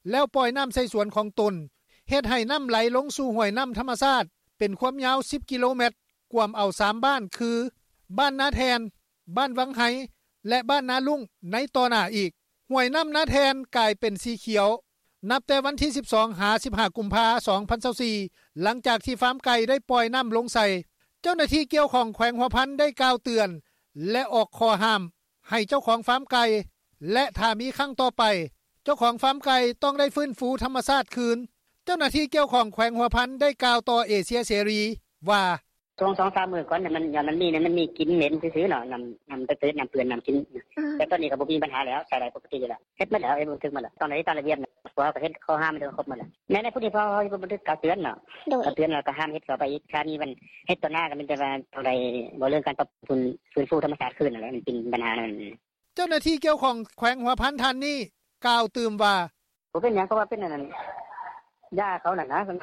ແລ້ວປ່ອຍນ້ຳໃສ່ສວນຂອງຕົນ ເຮັດໃຫ້ນ້ຳໄຫຼລົງສູ່ຫ້ວຍນ້ຳທຳມະຊາດ ເປັນຄວາມຍາວ ສິບ ກິໂລແມັດ ກວມເອົາ ສາມ ບ້ານ ຄື ບ້ານນາແທ່ນ, ບ້ານວັງໄຮ ແລະ ບ້ານນາລຸ້ງ ໃນຕໍ່ໜ້າອີກ. ຫ້ວຍນ້ຳນາແທ່ນກາຍເປັນສີຂຽວ ນັບແຕ່ວັນທີສິບສອງ ຫາ ສິບຫ້າ ກຸມພາ ສອງພັນຊາວສີ່ ຫຼັງຈາກທີ່ຟາມໄກ່ໄດ້ປ່ອຍນ້ຳລົງໃສ່. ເຈົ້າໜ້າທີ່ກ່ຽວຂ້ອງແຂວງຫົວພັນໄດ້ກ່າວເຕືອນ ແລະ ອອກຂໍ້ຫ້າມໃຫ້ເຈົ້າຂອງຟາມໄກ່ ແລະ ຖ້າມີຄັ້ງຕໍ່ໄປ ເຈົ້າຂອງຟາມໄກ່ຕ້ອງໄດ້ຟື້ນຟູທຳມະຊາດຄືນ. ເຈົ້າໜ້າທີ່ກ່ຽວຂ້ອງແຂວງຫົວພັນໄດ້ກ່າວຕໍ່ເອເຊຍເສລີວ່າ ຊ່ວງສອງສາມມື້ກ່ອນ ມັນ ມັນມີ ມັນມີກິ່ນເໝັນຊື່ໆເນາະ ນ້ຳ ນ້ຳເປີດ ນ້ຳເປື້ອນ ນ້ຳກິນ ແຕ່ຕອນນີ້ກໍບໍ່ມີບັນຫາແລ້ວ ໃຊ້ໄດ້ປົກກະຕິຢູ່ແລ້ວ ເຮັດໝົດແລ້ວ ເຮັດບັນທຶກໝົດແລ້ວ ຕ້ອງໄດ້ຕາມລະບຽບ ເພາະວ່າເຂົາເຮັດ ເຂົາຫ້າມໄປແລ້ວ ຄົບໝົດແລ້ວ ໃນ ໃນຜູ້ທີ່ເຂົາເຮັດບັນທຶກກ່າວເຕືອນເນາະ ເອີ ເຕືອນແລ້ວກໍຫ້າມເຮັດຕໍ່ໄປອີກ ຖ້າມີມັນເຮັດຕໍ່ໜ້າກໍມີແຕ່ວ່າຕ້ອງໄດ້ ເວົ້າເລື່ອງການປັບປຸງ ຟື້ນຟູທຳມະຊາດຄືນນັ້ນແຫຼະ ມັນເປັນບັນຫານັ້ນ. ເຈົ້າໜ້າທີ່ກ່ຽວຂ້ອງແຂວງຫົວພັນທ່ານນີ້ກ່າວຕື່ມວ່າ ບໍ່ເປັນຫຍັງ ເພາະວ່າເປັນອັນນັ້ນ ຢາເຂົານັ້ນນະ ມັນ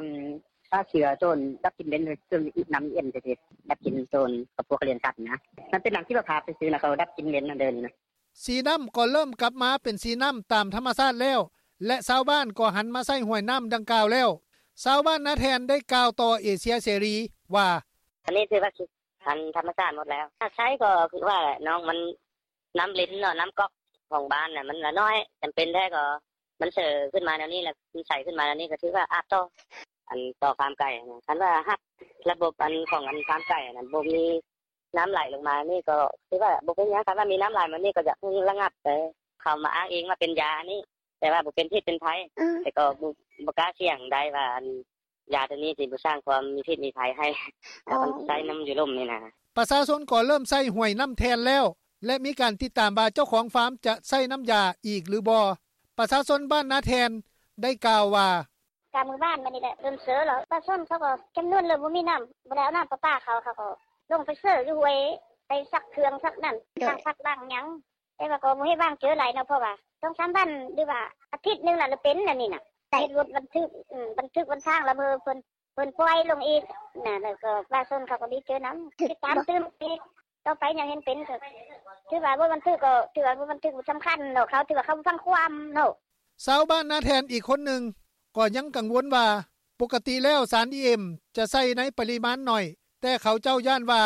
ຂ້າເຊື້ອໂຕນດັບກິ່ນເໝັນ ຄືນ້ຳ ອີ ເອັມ ຈັ່ງຊີ້ ດັບກິ່ນໂຕນ ເຂົາພວກລ້ຽງສັດນະ ມັນເປັນນ້ຳຊີວະພາບຊື່ໆນະ ເຂົາດັບກິ່ນເໝັນນະ ດຽວນີ້ນະ. ສີນ້ຳກໍເລີ່ມກັບມາເປັນສີນ້ຳຕາມທຳມະຊາດແລ້ວ ແລະ ຊາວບ້ານກໍຫັນມາໃຊ້ຫ້ວຍນ້ຳດັ່ງກ່າວແລ້ວ. ຊາວບ້ານນາແທ່ນໄດ້ກ່າວຕໍ່ເອເຊຍເສລີວ່າ ອັນນີ້ຖືວ່າ ອັນທຳມະຊາດໝົດແລ້ວ ຖ້າໃຊ້ກໍຄືວ່າແຫຼະ ນ້ອງມັນ ນ້ຳລິນເນາະ ນ້ຳກອກຂອງບ້ານນະ ມັນລະນ້ອຍ ຈຳເປັນແທ້ກໍມັນເຊີຂຶ້ນມາແນວນີ້ ແລ້ວມັນໃສຂຶ້ນມາແນວນີ້ ກໍຖືວ່າອາບຕໍ່ ອັນຕໍ່ຟາມໄກ່ຫັ້ນນະ ຄັນວ່າຮັບລະບົບອັນຂອງອັນຟາມໄກ່ຫັ້ນນະ ບໍ່ມີນ້ຳໄຫຼລົງມານີ້ ກໍຖືວ່າບໍ່ເປັນຫຍັງ ຄັນວ່າມີນ້ຳໄຫຼມານີ້ ກໍຢາກໃຫ້ລະງັບໄປ ເຂົາມາອ້າງອີງວ່າເປັນຢານີ້ ແຕ່ວ່າບໍ່ເປັນພິດເປັນໄພ ແຕ່ກໍບໍ່ ບໍ່ກ້າສ່ຽງໄດ້ວ່າ ອັນ ຢາໂຕນີ້ຊິບໍ່ສ້າງຄວາມມີພິດມີໄພໃຫ້ ແລ້ວມັນໃຊ້ນ້ຳຢູ່ລຸ່ມນີ້ນະ. ປະຊາຊົນກໍເລີ່ມໃຊ້ຫ້ວຍນ້ຳແທ່ນແລ້ວ ແລະ ມີການຕິດຕາມວ່າເຈົ້າຂອງຟາມຈະໃຊ້ນ້ຳຢາອີກຫຼືບໍ່. ປະຊາຊົນບ້ານນາແທ່ນໄດ້ກ່າວວ່າ ກະມື້ວານມານີ້ແຫຼະ ເລີ່ມເຊີແລ້ວ ປະຊາຊົນເຂົາກໍຈຳນວນເລີ່ມບໍ່ມີນ້ຳ ບໍ່ໄດ້ເອົານ້ຳປະປາເຂົາ ເຂົາກໍລົງໄປເຊີຢູ່ຫ້ວຍ ໄປຊັກເຄື່ອງຊັກນັ້ນ ລ້າງຜັກລ້າງຫຍັງ ແຕ່ວ່າກໍບໍ່ເຮັດວາງເຈີຫຼາຍເນາະ ເພາະວ່າສອງສາມວັນ ຫຼືວ່າອາທິດໜຶ່ງລະເປັນອັນນີ້ນະ ເຮັດບົດບັນທຶກ ອືມ ບັນທຶກບັນທາງລະເມີເພິ່ນ ເພິ່ນປ່ອຍລົງອີກນະ ແລ້ວກໍປະຊາຊົນເຂົາກໍດີໃຈນຳ ຕິດຕາມຕື່ມອີກ ຕໍ່ໄປຫຍັງເຫັນເປັນກໍຖືວ່າບໍ່ບັນທຶກ ກໍຖືວ່າບໍ່ບັນທຶກ ບໍ່ສຳຄັນເນາະ ເຂົາຖືວ່າເຂົາບໍ່ຟັງຄວາມເນາະ. ຊາວບ້ານນາແທ່ນອີກຄົນໜຶ່ງກໍຍັງກັງວົນວ່າ ປົກກະຕິແລ້ວສານ ອີ ເອັມ ຈະໃສ່ໃນປະລິມານໜ້ອຍ ແຕ່ເຂົາເຈົ້າຢ້ານວ່າ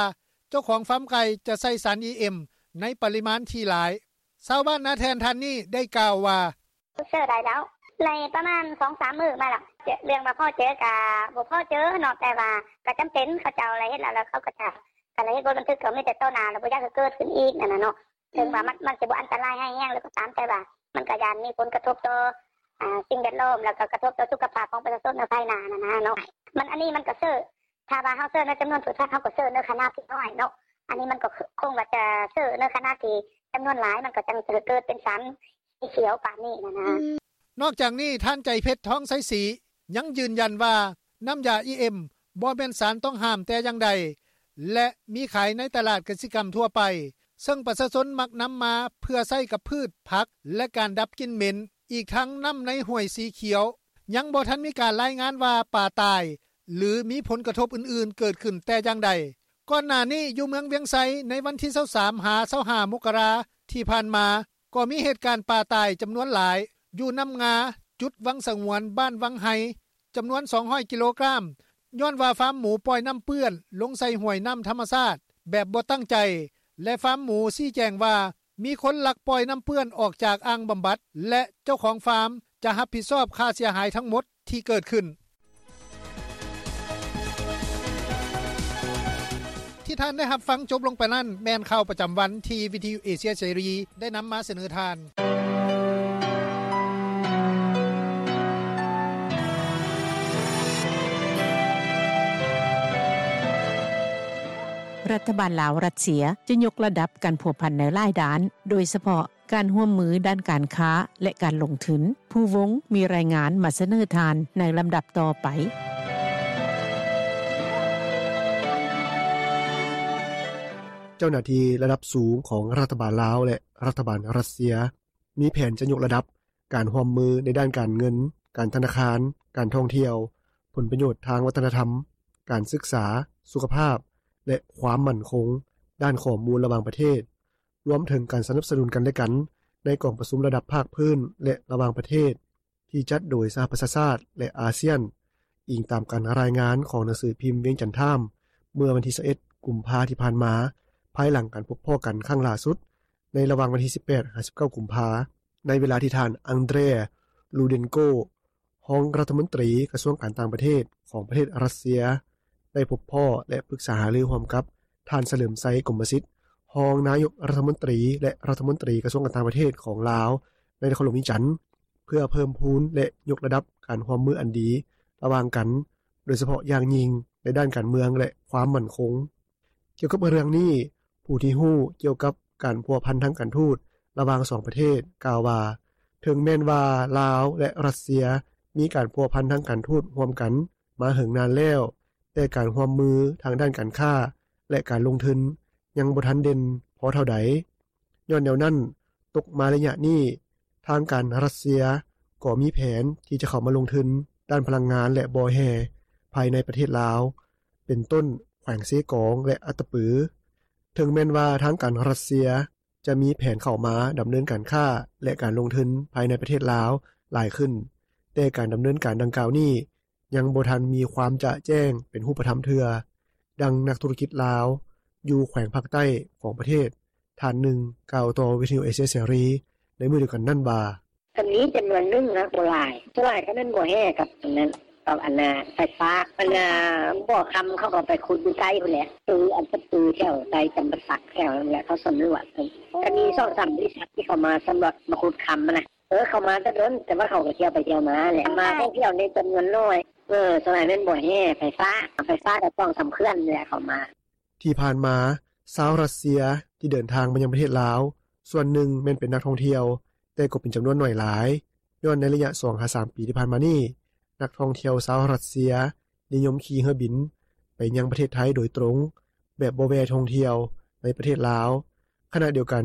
ເຈົ້າຂອງຟາມໄກ່ຈະໃສ່ສານ ອີ ເອັມ ໃນປະລິມານທີ່ຫຼາຍ. ຊາວບ້ານນາແທ່ນທ່ານນີ້ໄດ້ກ່າວວ່າ ເຊີໄດ້ແລ້ວ ໄດ້ປະມານສອງສາມມື້ມາແລ້ວ ເລື່ອງວ່າພໍເຈີກະບໍ່ພໍເຈີເນາະ ແຕ່ວ່າກະຈຳເປັນ ເຂົາເຈົ້າລະເຮັດແລ້ວ ແລ້ວເຂົາກໍຈະ ຄັນລະເຮັດບົດບັນທຶກກໍມີແຕ່ຕໍ່ໜ້າ ລະບໍ່ຢາກໃຫ້ເກີດຂຶ້ນອີກຫັ້ນນະເນາະ ເຖິງວ່າມັນ ມັນຈະບໍ່ອັນຕະລາຍຮ້າຍແຮງແລ້ວກໍຕາມ ແຕ່ວ່າມັນກໍຢ້ານມີຜົນກະທົບຕໍ່ ອ່າ ສິ່ງແວດລ້ອມ ແລ້ວກໍກະທົບຕໍ່ສຸຂະພາບຂອງປະຊາຊົນໃນພາຍໜ້າຫັ້ນນະເນາະ ມັນ ອັນນີ້ມັນກໍເຊີ ຖ້າວ່າເຮົາເຊີໃນຈຳນວນພືດພັນ ເຮົາກໍເຊີໃນຂະໜາດທີ່ນ້ອຍເນາະ ອັນນີ້ມັນກໍຄົງວ່າຈະເຊີໃນຂະໜາດທີ່ຈຳນວນຫຼາຍ ມັນກໍຈັ່ງຈະເກີດເປັນສານສີຂຽວປານນີ້ຫັ້ນນະ. ນອກຈາກນີ້ ທ່ານ ໃຈເພັດ ທອງໄຊສີ ຍັງຢືນຢັນວ່າ ນ້ຳຢາ ອີ ເອັມ ບໍ່ແມ່ນສານຕ້ອງຫ້າມແຕ່ຢ່າງໃດ ແລະ ມີຂາຍໃນຕະຫຼາດກະສິກຳທົ່ວໄປ ເຊິ່ງປະຊາຊົນມັກນຳມາເພື່ອໃຊ້ກັບພືດ, ຜັກ ແລະ ການດັບກິ່ນເໝັນ. ອີກທັງນ້ຳໃນຫ້ວຍສີຂຽວ ຍັງບໍ່ທັນມີການລາຍງານວ່າປາຕາຍ ຫຼື ມີຜົນກະທົບອື່ນໆເກີດຂຶ້ນແຕ່ຢ່າງໃດ. ກ່ອນໜ້ານີ້ ຢູ່ເມືອງວຽງໄຊ ໃນວັນທີຊາວສາມ ຫາ ຊາວຫ້າ ມົກກະລາ ທີ່ຜ່ານມາ ກໍມີເຫດການປາຕາຍຈຳນວນຫຼາຍ ຢູ່ນ້ຳງາ ຈຸດວັງສະຫງວນ ບ້ານວັງໄຮ ຈຳນວນສອງຮ້ອຍກິໂລກຣາມ ຍ້ອນວ່າຟາມໝູປ່ອຍນ້ຳເປື້ອນລົງໃສ່ຫ້ວຍນ້ຳທຳມະຊາດແບບບໍ່ຕັ້ງໃຈ ແລະ ຟາມໝູຊີ້ແຈງວ່າ ມີຄົນລັກປ່ອຍນ້ຳເປື້ອນອອກຈາກອ່າງບຳບັດ ແລະ ເຈົ້າຂອງຟາມຈະຮັບຜິດຊອບຄ່າເສຍຫາຍທັງໝົດທີ່ເກີດຂຶ້ນ. ທີ່ທ່ານໄດ້ຮັບຟັງຈົບລົງໄປນັ້ນ ແມ່ນຂ່າວປະຈຳວັນທີ່ວິທະຍຸເອເຊຍເສລີໄດ້ນຳມາສະເໜີທ່ານ. ລັດຖະບານລາວ-ຣັດເຊຍ ຈະຍົກລະດັບການພົວພັນໃນຫຼາຍດ້ານ, ໂດຍສະເພາະ ການຮ່ວມມືດ້ານການຄ້າ ແລະ ການລົງທຶນ. ພູວົງ ມີລາຍງານມາສະເໜີທ່ານໃນລຳດັບຕໍ່ໄປ. ເຈົ້າໜ້າທີ່ລະດັບສູງຂອງລັດຖະບານລາວ ແລະ ລັດຖະບານຣັດເຊຍ ມີແຜນຈະຍົກລະດັບການຮ່ວມມືໃນດ້ານການເງິນ, ການທະນາຄານ, ການທ່ອງທ່ຽວ, ຜົນປະໂຫຍດທາງວັດທະນະທຳ, ການສຶກສາ, ສຸຂະພາບ, ແລະ ຄວາມໝັ້ນຄົງດ້ານຂໍ້ມູນລະຫວ່າງປະເທດ, ລວມເຖິງການສະໜັບສະໜູນກັນແລະກັນໃນກອງປະຊຸມລະດັບພາກພື້ນ ແລະ ລະຫວ່າງປະເທດ ທີ່ຈັດໂດຍສະຫະປະຊາຊາດ ແລະ ອາຊຽນ, ອີງຕາມການລາຍງານຂອງໜັງສືພິມວຽງຈັນທາມ ເມື່ອວັນທີຊາວເອັດ ກຸມພາທີ່ຜ່ານມາ, ພາຍຫຼັງການພົບພໍ້ກັນຄັ້ງລ່າສຸດ ໃນລະຫວ່າງວັນທີສິບແປດ ຫາ ສິບເກົ້າ ກຸມພາ, ໃນເວລາທີ່ທ່ານ ອັງເດຣ ລູເດັນໂກ ຮອງລັດຖະມົນຕີກະຊວງການຕ່າງປະເທດຂອງປະເທດຣັດເຊຍ ໄດ້ພົບພໍ້ ແລະ ປຶກສາຫາລືຮ່ວມກັບທ່ານ ສະເຫຼີມໄຊ ກົມມະສິດ ຮອງນາຍົກລັດຖະມົນຕີ ແລະ ລັດຖະມົນຕີກະຊວງການຕ່າງປະເທດຂອງລາວ ໃນນະຄອນຫຼວງວຽງຈັນ ເພື່ອເພີ່ມພູນ ແລະ ຍົກລະດັບການຮ່ວມມືອັນດີລະຫວ່າງກັນ, ໂດຍສະເພາະຢ່າງຍິ່ງໃນດ້ານການເມືອງ ແລະ ຄວາມໝັ້ນຄົງ. ກ່ຽວກັບເລື່ອງນີ້, ຜູ້ທີ່ຮູ້ກ່ຽວກັບການພົວພັນທາງການທູດລະຫວ່າງສອງປະເທດ ກ່າວວ່າ ເຖິງແມ່ນວ່າລາວ ແລະ ຣັດເຊຍ ມີການພົວພັນທາງການທູດຮ່ວມກັນມາເຫິງນານແລ້ວ, ແຕ່ການຮ່ວມມືທາງດ້ານການຄ້າ ແລະ ການລົງທຶນຍັງບໍ່ທັນເດັ່ນພໍເທົ່າໃດ. ຍ້ອນແນວນັ້ນ, ຕົກມາໄລຍະນີ້, ທາງການຣັດເຊຍກໍມີແຜນທີ່ຈະເຂົ້າມາລົງທຶນດ້ານພະລັງງານ ແລະ ບໍ່ແຮ່ ພາຍໃນປະເທດລາວ, ເປັນຕົ້ນ ແຂວງເຊກອງ ແລະ ອັດຕະປື. ເຖິງແມ່ນວ່າທາງການຣັດເຊຍຈະມີແຜນເຂົ້າມາດຳເນີນການຄ້າ ແລະ ການລົງທຶນພາຍໃນປະເທດລາວຫຼາຍຂຶ້ນ, ແຕ່ການດຳເນີນການດັ່ງກ່າວນີ້ ຍັງບໍ່ທັນມີຄວາມຈະແຈ້ງເປັນຮູບປະທຳເທື່ອ, ດັ່ງນັກທຸລະກິດລາວຢູ່ແຂວງພາກໃຕ້ຂອງປະເທດທ່ານໜຶ່ງ ກ່າວຕໍ່ວິທະຍຸເອເຊຍເສລີໃນມື້ດຽວກັນນັ້ນວ່າ: ກໍມີຈຳນວນໜຶ່ງນະ ບໍ່ຫຼາຍ, ສ່ວນຫຼາຍກໍແມ່ນບໍ່ແຮ່ກັບອັນນັ້ນ ກັບອັນນ່າໄຟຟ້າ, ອັນນ່າບໍ່ຄຳເຂົາກໍໄປຂຸດຢູ່ໃຕ້ພຸ້ນແຫຼະ, ຄືອັນປະຕູແຖວໃຕ້ຈຳປາສັກແຖວນັ້ນແຫຼະ ເຂົາສຳຫຼວດ, ກໍມີສອງສາມບໍລິສັດທີ່ເຂົາມາສຳຫຼວດມາຂຸດຄຳຫັ້ນນະ. ເອີ ເຂົາມາແຕ່ດົນ, ແຕ່ວ່າເຂົາກໍທ່ຽວໄປທ່ຽວມາແຫຼະ, ມາທ່ອງທ່ຽວໃນຈຳນວນໜ້ອຍ. ເອີ ສ່ວນຫຼາຍແມ່ນບໍ່ແຮ່ໄຟຟ້າ, ເອົາໄຟຟ້າກໍສອງສາມເຂື່ອນແຫຼະເຂົາມາ. ທີ່ຜ່ານມາ, ຊາວຣັດເຊຍທີ່ເດີນທາງມາຍັງປະເທດລາວ ສ່ວນໜຶ່ງແມ່ນເປັນນັກທ່ອງທ່ຽວ, ແຕ່ກໍເປັນຈຳນວນໜ້ອຍຫຼາຍ, ຍ້ອນໃນໄລຍະສອງຫາສາມປີທີ່ຜ່ານມານີ້, ນັກທ່ອງທ່ຽວຊາວຣັດເຊຍ ນິຍົມຂີ່ເຮືອບິນໄປຍັງປະເທດໄທໂດຍຕຣົງ ແບບບໍ່ແວ່ທ່ອງທ່ຽວໃນປະເທດລາວ. ຂະນະດຽວກັນ,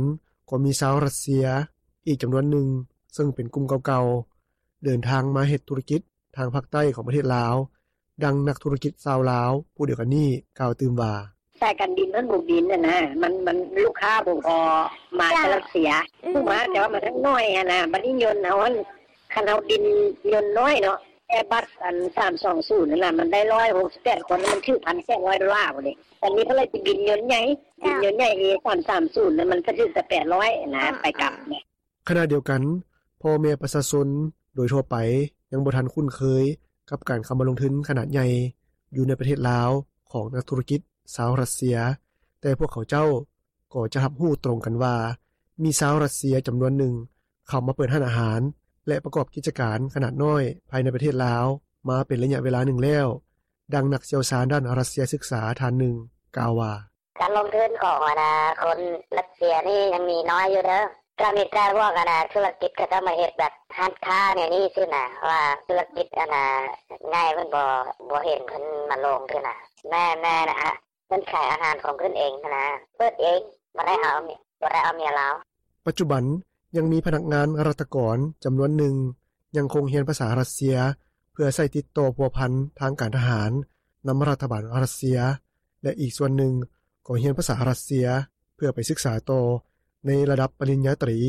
ກໍມີຊາວຣັດເຊຍອີກຈຳນວນໜຶ່ງ ເຊິ່ງເປັນກຸ່ມເກົ່າໆ ເດີນທາງມາເຮັດທຸລະກິດທາງພາກໃຕ້ຂອງປະເທດລາວ, ດັ່ງນັກທຸລະກິດຊາວລາວຜູ້ດຽວກັນນີ້ກ່າວຕື່ມວ່າ: ສາຍການບິນມັນບໍ່ບິນຫັ້ນນະ, ມັນ ມັນລູກຄ້າບໍ່ພໍມາຈາກຣັດເຊຍ, ຜູ້ມາແຕ່ວ່າມັນຍັງໜ້ອຍຫັ້ນນະ, ບັດນີ້ຍົນເຮົາຫັ້ນ ຄັນເຮົາບິນຍົນນ້ອຍເນາະ ແອບັສ ອັນ ສາມສອງສູນຫັ້ນນະ ມັນໄດ້ຮ້ອຍຫົກສິບແປດຄົນ ມັນຖືກພັນແປດຮ້ອຍໂດລາພຸ້ນເດ. ອັນນີ້ເພິ່ນເລີຍຊິບິນຍົນໃຫຍ່, ບິນຍົນໃຫຍ່ ເອສາມສາມສູນ ມັນກໍຖືກແຕ່ແປດຮ້ອຍນະ ໄປກັບ. ຂະນະດຽວກັນ, ພໍ່ແມ່ປະຊາຊົນໂດຍທົ່ວໄປຍັງບໍ່ທັນຄຸ້ນເຄີຍກັບການເຂົ້າມາລົງທຶນຂະໜາດໃຫຍ່ຢູ່ໃນປະເທດລາວຂອງນັກທຸລະກິດຊາວຣັດເຊຍ, ແຕ່ພວກເຂົາເຈົ້າ ກໍຈະຮັບຮູ້ຕົງກັນວ່າ ມີຊາວຣັດເຊຍຈຳນວນໜຶ່ງເຂົ້າມາເປີດຮ້ານອາຫານ ແລະ ປະກອບກິດຈະການຂະໜາດນ້ອຍພາຍໃນປະເທດລາວມາເປັນໄລຍະເວລາໜຶ່ງແລ້ວ, ດັ່ງນັກຊ່ຽວຊານດ້ານຣັດເຊຍສຶກສາທ່ານໜຶ່ງກ່າວວ່າ: ການລົງທຶນຂອງ ອັນນ່າ ຄົນຣັດເຊຍນີ້ຍັງມີນ້ອຍຢູ່ເດີ, ກໍມີແຕ່ພວກ ອັນນ່າ ທຸລະກິດເຂົາເຈົ້າມາເຮັດແບບຮ້ານຄ້າແນວນີ້ຊື່ນະ, ວ່າທຸລະກິດ ອັນນ່າ ໃຫຍ່ເພິ່ນບໍ່ ບໍ່ເຫັນເພິ່ນມາລົງຊື່ນະ. ແມ່ນໆ ເພິ່ນຂາຍອາຫານຂອງເພິ່ນເອງຫັ້ນນະ, ເປີດເອງ, ບໍ່ໄດ້ເອົາ ບໍ່ໄດ້ເອົາເມຍລາວ. ປັດຈຸບັນຍັງມີພະນັກງານລັດຖະກອນຈຳນວນໜຶ່ງຍັງຄົງຮຽນພາສາຣັດເຊຍ ເພື່ອໃຊ້ຕິດຕໍ່ພົວພັນທາງການທະຫານນຳລັດຖະບານຣັດເຊຍ ແລະ ອີກສ່ວນໜຶ່ງກໍຮຽນພາສາຣັດເຊຍເພື່ອໄປສຶກສາຕໍ່ໃນລະດັບປະລິນຍາຕຣີ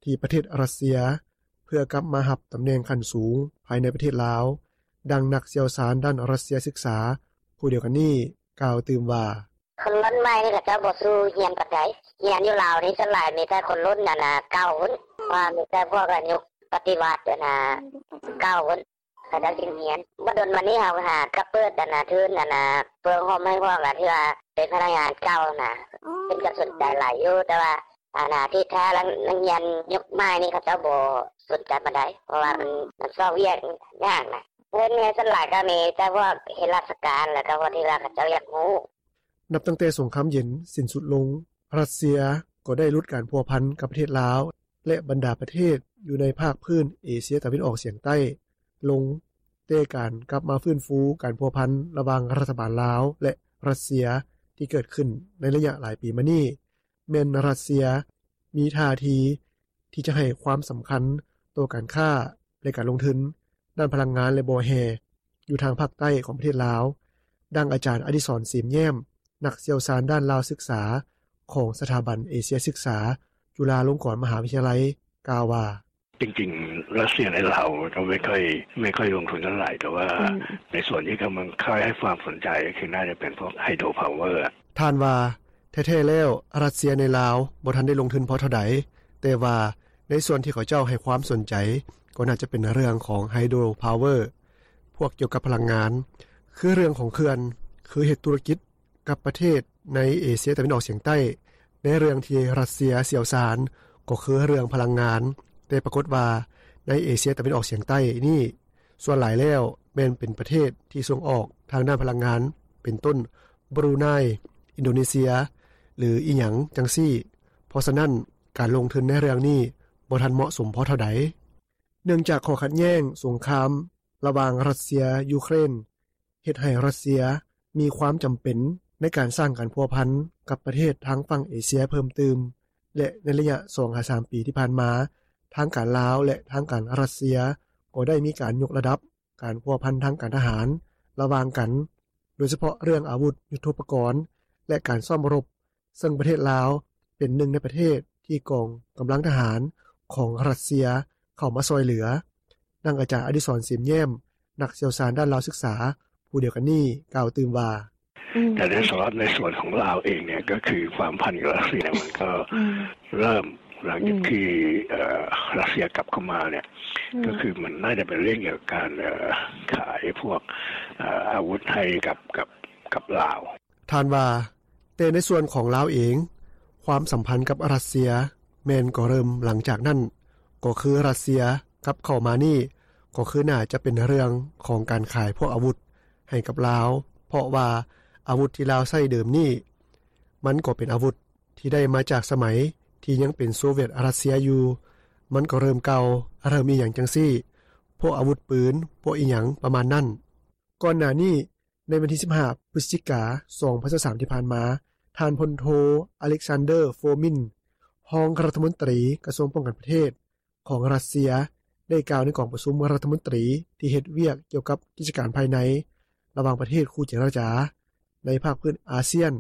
ທີ່ປະເທດຣັດເຊຍ ເພື່ອກັບມາຮັບຕຳແໜ່ງຂັ້ນສູງພາຍໃນປະເທດລາວ, ດັ່ງນັກຊ່ຽວຊານດ້ານຣັດເຊຍສຶກສາຜູ້ດຽວກັນນີ້ກ່າວຕື່ມວ່າ: ຄົນລຸ້ນໃໝ່ນີ້ເຂົາເຈົ້າບໍ່ສູ້ຮຽນປານໃດ, ຮຽນຢູ່ລາວນີ້ສ່ວນຫຼາຍມີແຕ່ຄົນລຸ້ນ ອັນນ່າ ເກົ່າພຸ້ນ, ວ່າມີແຕ່ພວກ ອາ ຍຸກປະຕິວັດ ອັນນ່າ ເກົ່າພຸ້ນ ເຂົາເຈົ້າຈຶ່ງຮຽນ. ບໍ່ດົນມານີ້ເຮົາຫາກໍເປີດ ອັນນ່າ ທຶນ ອັນນ່າ ເພື່ອໂຮມໃຫ້ພວກ ອາ ທີ່ວ່າເປັນພະນັກງານເກົ່ານະ, ເພິ່ນກໍສົນໃຈຫຼາຍຢູ່, ແຕ່ວ່າ ອັນນ່າ ທີ່ແທ້ແລ້ວນັກຮຽນຍຸກໃໝ່ນີ້ເຂົາເຈົ້າບໍ່ສົນໃຈປານໃດ, ເພາະວ່າມັນ ມັນຊອກວຽກຍາກນະ. ເງິນເຮົາສ່ວນຫຼາຍກໍມີແຕ່ພວກເຮັດລາຊະການ ແລ້ວກໍພວກທີ່ວ່າເຂົາເຈົ້າຢາກຮູ້. ນັບຕັ້ງແຕ່ສົງຄາມເຢັນສິ້ນສຸດລົງ, ຣັດເຊຍກໍໄດ້ຫຼຸດການພົວພັນກັບປະເທດລາວ ແລະ ບັນດາປະເທດຢູ່ໃນພາກພື້ນເອເຊຍຕາເວັນອອກສຽງໃຕ້ລົງ, ແຕ່ການກັບມາຟື້ນຟູການພົວພັນລະຫວ່າງລັດຖະບານລາວ ແລະ ຣັດເຊຍທີ່ເກີດຂຶ້ນໃນໄລຍະຫຼາຍປີມານີ້ ແມ່ນຣັດເຊຍມີທ່າທີທີ່ຈະໃຫ້ຄວາມສຳຄັນຕໍ່ການຄ້າ ແລະ ການລົງທຶນດ້ານພະລັງງານ ແລະ ບໍ່ແຮ່ ຢູ່ທາງພາກໃຕ້ຂອງປະເທດລາວ, ດັ່ງອາຈານ ອະດິສອນ ເສມແຍ້ມ, ນັກຊ່ຽວຊານດ້ານລາວສຶກສາ ຂອງສະຖາບັນເອເຊຍສຶກສາ ຈຸລາລົງກອນມະຫາວິທະຍາໄລ ກ່າວວ່າ: จริงๆ รัสเซียในลาวก็ไม่ค่อย ไม่ค่อยลงทุนเท่าไหร่ แต่ว่า อืม ในส่วนที่กำลังค่อยให้ความสนใจก็คือน่าจะเป็นพวกไฮโดรพาวเวอร์ ທ່ານວ່າ ແທ້ໆແລ້ວ ຣັດເຊຍໃນລາວບໍ່ທັນໄດ້ລົງທຶນພໍເທົ່າໃດ, ແຕ່ວ່າໃນສ່ວນທີ່ເຂົາເຈົ້າໃຫ້ຄວາມສົນໃຈ ກໍໜ້າຈະເປັນເລື່ອງຂອງໄຮໂດຣພາວເວີ ພວກກ່ຽວກັບພະລັງງານ ຄືເລື່ອງຂອງເຂື່ອນ, ຄືເຮັດທຸລະກິດ ກັບປະເທດໃນເອເຊຍຕາເວັນອອກສຽງໃຕ້. ໃນເລື່ອງທີ່ຣັດເຊຍຊ່ຽວຊານກໍຄືເລື່ອງພະລັງງານ, ແຕ່ປາກົດວ່າໃນເອເຊຍຕາເວັນອອກສຽງໃຕ້ນີ້ ສ່ວນຫຼາຍແລ້ວແມ່ນເປັນປະເທດທີ່ສົ່ງອອກທາງດ້ານພະລັງງານ ເປັນຕົ້ນ ບຣູໄນ, ອິນໂດເນເຊຍ ຫຼື ອີ່ຫຍັງຈັ່ງຊີ້. ເພາະສະນັ້ນ ການລົງທຶນໃນເລື່ອງນີ້ບໍ່ທັນເໝາະສົມພໍເທົ່າໃດ. ເນື່ອງຈາກຂໍ້ຂັດແຍ້ງສົງຄາມລະຫວ່າງຣັດເຊຍ-ຢູເຄຣນ ເຮັດໃຫ້ຣັດເຊຍມີຄວາມຈຳເປັນໃນການສ້າງການພົວພັນກັບປະເທດທາງຝັ່ງເອເຊຍເພີ່ມຕື່ມ ແລະ ໃນໄລຍະສອງຫາສາມປີທີ່ຜ່ານມາ, ທາງການລາວ ແລະ ທາງການຣັດເຊຍກໍໄດ້ມີການຍົກລະດັບການພົວພັນທາງການທະຫານລະຫວ່າງກັນ, ໂດຍສະເພາະເລື່ອງອາວຸດຍຸດໂທປະກອນ ແລະ ການຊ້ອມລົບ, ເຊິ່ງປະເທດລາວເປັນໜຶ່ງໃນປະເທດທີ່ກອງກຳລັງທະຫານຂອງຣັດເຊຍເຂົ້າມາຊ່ອຍເຫຼືອ. ດັ່ງອາຈານອະດິສອນ ເສມແຍ້ມ ນັກຊ່ຽວຊານດ້ານລາວສຶກສາຜູ້ດຽວກັນນີ້ ກ່າວຕື່ມວ່າ: อืม แต่ในสำหรับในส่วนของลาวเองเนี่ย ก็คือความสัมพันธ์กับรัสเซียมันก็ อืม เริ่มหลังจาก อืม ที่ เอ่อ รัสเซียกลับเข้ามาเนี่ย อืม ก็คือมันน่าจะเป็นเรื่องเกี่ยวกับการ เอ่อ ขายพวก เอ่อ อาวุธให้กับ กับ กับลาว ທ່ານວ່າ ແຕ່ໃນສ່ວນຂອງລາວເອງ, ຄວາມສຳພັນກັບຣັດເຊຍແມ່ນກໍເລີ່ມຫຼັງຈາກນັ້ນ, ກໍຄືຣັດເຊຍກັບເຂົ້າມານີ້ ກໍຄືໜ້າຈະເປັນເລື່ອງຂອງການຂາຍພວກອາວຸດໃຫ້ກັບລາວ, ເພາະວ່າອາວຸດທີ່ລາວໃຊ້ເດີມນີ້ ມັນກໍເປັນອາວຸດທີ່ໄດ້ມາຈາກສະໄໝທີ່ຍັງເປັນໂຊວຽດຣັດເຊຍຢູ່, ມັນກໍເລີ່ມເກົ່າ, ເລີ່ມອີ່ຫຍັງຈັ່ງຊີ້, ພວກອາວຸດປືນ, ພວກອີ່ຫຍັງປະມານນັ້ນ. ກ່ອນໜ້ານີ້ ໃນວັນທີສິບຫ້າ ພຶສຈິກາ ສອງພັນຊາວສາມ ທີ່ຜ່ານມາ, ທ່ານ ພົນໂທ ອາເລັກຊານເດີ ໂຟມິນ ຮອງລັດຖະມົນຕີ ກະຊວງປ້ອງກັນປະເທດ ຂອງຣັດເຊຍ ໄດ້ກ່າວໃນກອງປະຊຸມລັດຖະມົນຕີທີ່ເຮັດວຽກກ່ຽວກັບກິດຈະການພາຍໃນ ລະຫວ່າງປະເທດຄູ່ເຈລະຈາ ໃນພາກພື້ນອາຊຽນ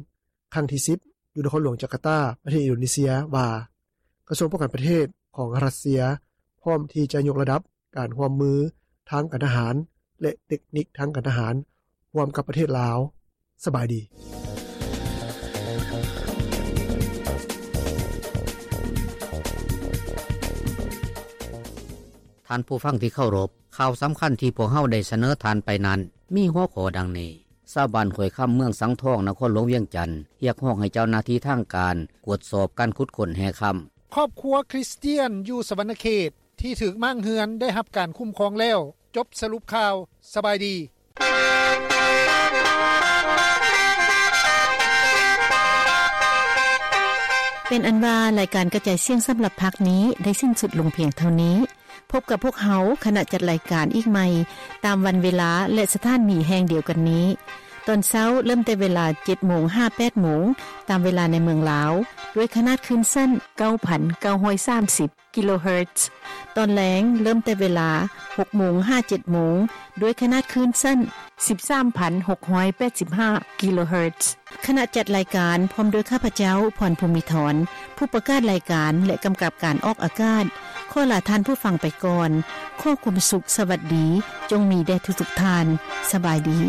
ຄັ້ງທີສິບ ຢູ່ນະຄອນຫຼວງຈາກາຕາ ປະເທດອິນໂດເນເຊຍ ວ່າ ກະຊວງປ້ອງກັນປະເທດຂອງຣັດເຊຍ ພ້ອມທີ່ຈະຍົກລະດັບ ການຮ່ວມມືທາງການທະຫານ ແລະ ເຕັກນິກທາງການທະຫານ ຮ່ວມກັບປະເທດລາວ. ສະບາຍດີ. ທ່ານຜູ້ຟັງທີ່ເຄົາລົບ, ຂ່າວສຳຄັນທີ່ພວກເຮົາໄດ້ສະເໜີທ່ານໄປນັ້ນ ມີຫົວຂໍ້ດັ່ງນີ້: ຊາວບ້ານຫ້ວຍຄຳ ເມືອງສັງທອງ ນະຄອນຫຼວງວຽງຈັນ ຮຽກຮ້ອງໃຫ້ເຈົ້າໜ້າທີ່ທາງການກວດສອບການຂຸດຄົ້ນແຮ່ຄຳ. ຄອບຄົວຄຣິສຕຽນຢູ່ສະຫວັນນະເຂດທີ່ຖືກມ້າງເຮືອນໄດ້ຮັບການຄຸ້ມຄອງແລ້ວ. ຈົບສະຫຼຸບຂ່າວ. ສະບາຍດີ. ເປັນອັນວ່າ ລາຍການກະຈາຍສຽງສຳລັບພາກນີ້ໄດ້ສິ້ນສຸດລົງພຽງເທົ່ານີ້. ພົບກັບພວກເຮົາ ຄະນະຈັດລາຍການອີກໃໝ່ ຕາມວັນເວລາ ແລະ ສະຖານີແຫ່ງດຽວກັນນີ້. ຕອນເຊົ້າເລີ່ມແຕ່ເວລາ ເຈັດໂມງ ຫາ ແປດໂມງ ຕາມເວລາໃນເມືອງລາວ ດ້ວຍຂະໜາດຄື້ນສັ້ນ ເກົ້າພັນເກົ້າຮ້ອຍສາມສິບ ກິໂລເຮີດ. ຕອນແລງເລີ່ມແຕ່ເວລາ ຫົກໂມງ ຫາ ເຈັດໂມງ ດ້ວຍຂະໜາດຄື້ນສັ້ນ ສິບສາມພັນຫົກຮ້ອຍແປດສິບຫ້າ ກິໂລເຮີດ. ຄະນະຈັດລາຍການ ພ້ອມດ້ວຍຂ້າພະເຈົ້າ ພອນ ພູມີທອນ ຜູ້ປະກາດລາຍການ ແລະ ກຳກັບການອອກອາກາດ ຂໍລາທ່ານຜູ້ຟັງໄປກ່ອນ. ຂໍຄວາມສຸກ, ສະຫວັດດີ ຈົ່ງມີແດ່ທຸກໆທ່ານ. ສະບາຍດີ.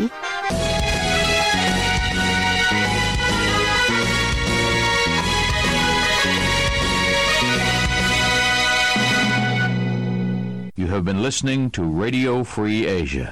You have been listening to Radio Free Asia.